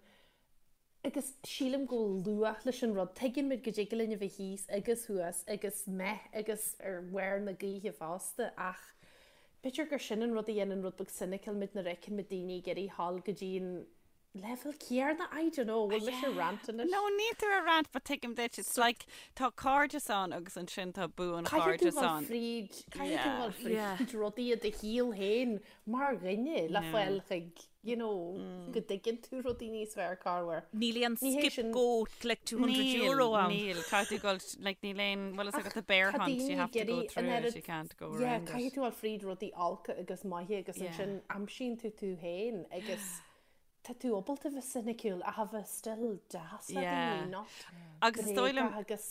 Agus sílim go bhfuil luach leis an rud. Tuigeann muid go dtig linn a bheith thíos agus thuas agus meh agus ar bharr na gaoithe fosta ach b'fhéidir gur sin an rud a dhéanann rud beag cynical muid nuair a fheiceann muid daoine ag iarraidh dhul go dtí an. Leibhéal céarna? I don't know, bhfuil mise ag rant anois? No, níl tú ag rant, but tuigim duit, it's like tá cairdeas ann agus ansin tá buanchairdeas ann. Caithfidh tú dul fríd, caithfidh tú dul fríd rudaí i do shaol féin mar dhuine le fáil chuig, you know, go dtuigeann tú rudaí níos fearr corruair. Níl aon skip go collect €200 ann. Níl, caithfidh tú dul, like níl aon, bhfuil fhios agat the bear hunt, you have to go through it, you can't go around it. Yeah, caithfidh tú dul fríd rudaí olca agus maithe agus ansin aimsíonn tú tú féin agus Tá tú ábalta bheith soiniciúil ach a bheith still deas le daoine, not Agus is dóigh liom bréagach agus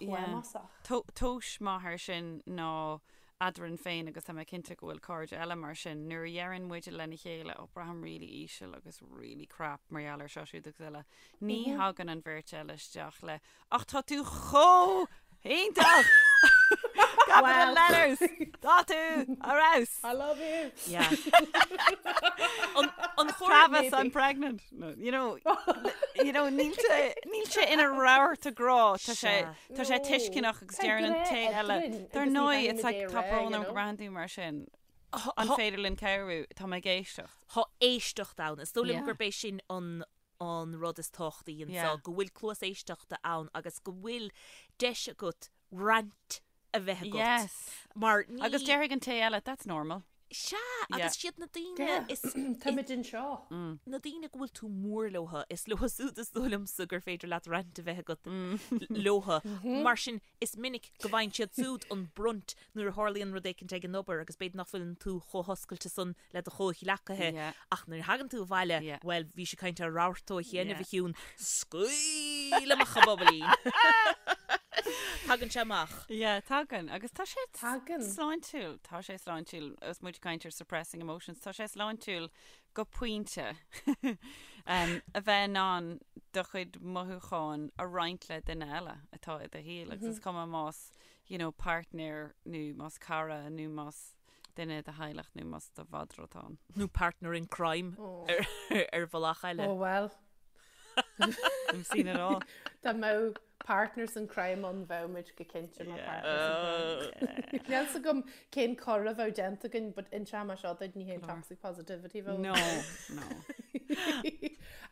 plámásach. Tomhas maith air sin ná eadrainn féin agus tá mé cinnte go bhfuil cairde eile mar sin, nuair a dheireann muide lena chéile oh braithim really íseal agus really crap mar gheall ar seo siúd agus eile, ní thagann an bheirt eile isteach le Ach tá tú chomh hiontach! Capital letters! Tá tú ar fheabhas! I love you! Yeah. An, an chóir Travis, I'm pregnant. No, you know, you know, níl sé, níl sé ina rabharta grá, tá sé, tá sé tuisceanach agus Tá deireann an grá té eile. eadrainn Dar agus ní ndóigh, bheidh it's muid like, é tá rá, brón you orm go know. mbraitheann tú mar sin. An féidir linn cabhrú? Tá mé ag éisteacht. Tá éisteacht ann. Is dóigh liom Yeah. gurb é sin an an rud is tábhachtaí anseo, go bhfuil cluas éisteachta ann agus go bhfuil deis agat rant a bheith agat. Yes. Mar ní... Agus déarfaidh an té eile, that's normal. Sea, agus siad na daoine is... Táimid anseo. Na daoine go bhfuil tú mór leotha, is leo siúd is dóigh liomsa gur féidir leat rant a bheith agat leotha. Mar sin, Is minic go bhfaigheann siad siúd an brunt nuair a tharlaíonn rud éicint ag an obair agus b'fhéidir nach bhfuileann tú chomh hoscailte san le do chomhghleacaithe ach nuair a thagann tú abhaile, bhuel, bhís ag caint ar rabharta ó chianaibh, a Shiún, scaoil amach an bobailín! Tagann sé amach. Yeah, tagann. Agus tá sé Tagann. sláintiúil. Tá sé sláintiúil. Agus muid ag caint ar suppressing emotions, tá sé sláintiúil go pointe, a bheith in ann do chuid mothúchán a roinnt le duine eile atá i do shaol agus is cuma más you know partner nó más cara nó más duine i do theaghlach nó más do mhadra atá ann. Nó partner in crime ar bhealach eile. Oh well. I've seen it all. Dá mbeadh partners in crime ann bheadh muid go cinnte mar partners in crime. Níl 's agam cén coir a bheadh déanta againn but inseoidh mé seo duit ní haon toxic positivity bheadh. No, no.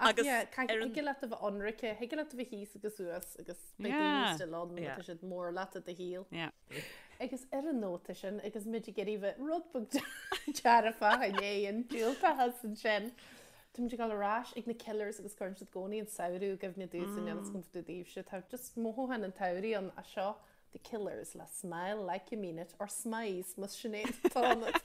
Ach Agus yeah, ar an- thig leat a bheith ionraic, thig leat a bheith thíos agus suas agus beidh Yeah. daoine still ann Yeah. tá siad mór leat i do shaol. Yeah. Agus ar an nóta sin agus muid ag iarraidh bheith rud beag dearfach i ndiaidh an diúltachas ansin. Táimid ag dul ar ais ag na Killers agus cuireann siad i gcónaí an samhradh i gcuimhne domhsa níl fhios agam fá dtaobh daoibhse. Tá just mothúchán an tsamhraidh ann as seo The Killers le Smile Like You Mean It or Smize más Sinéad atá ionat.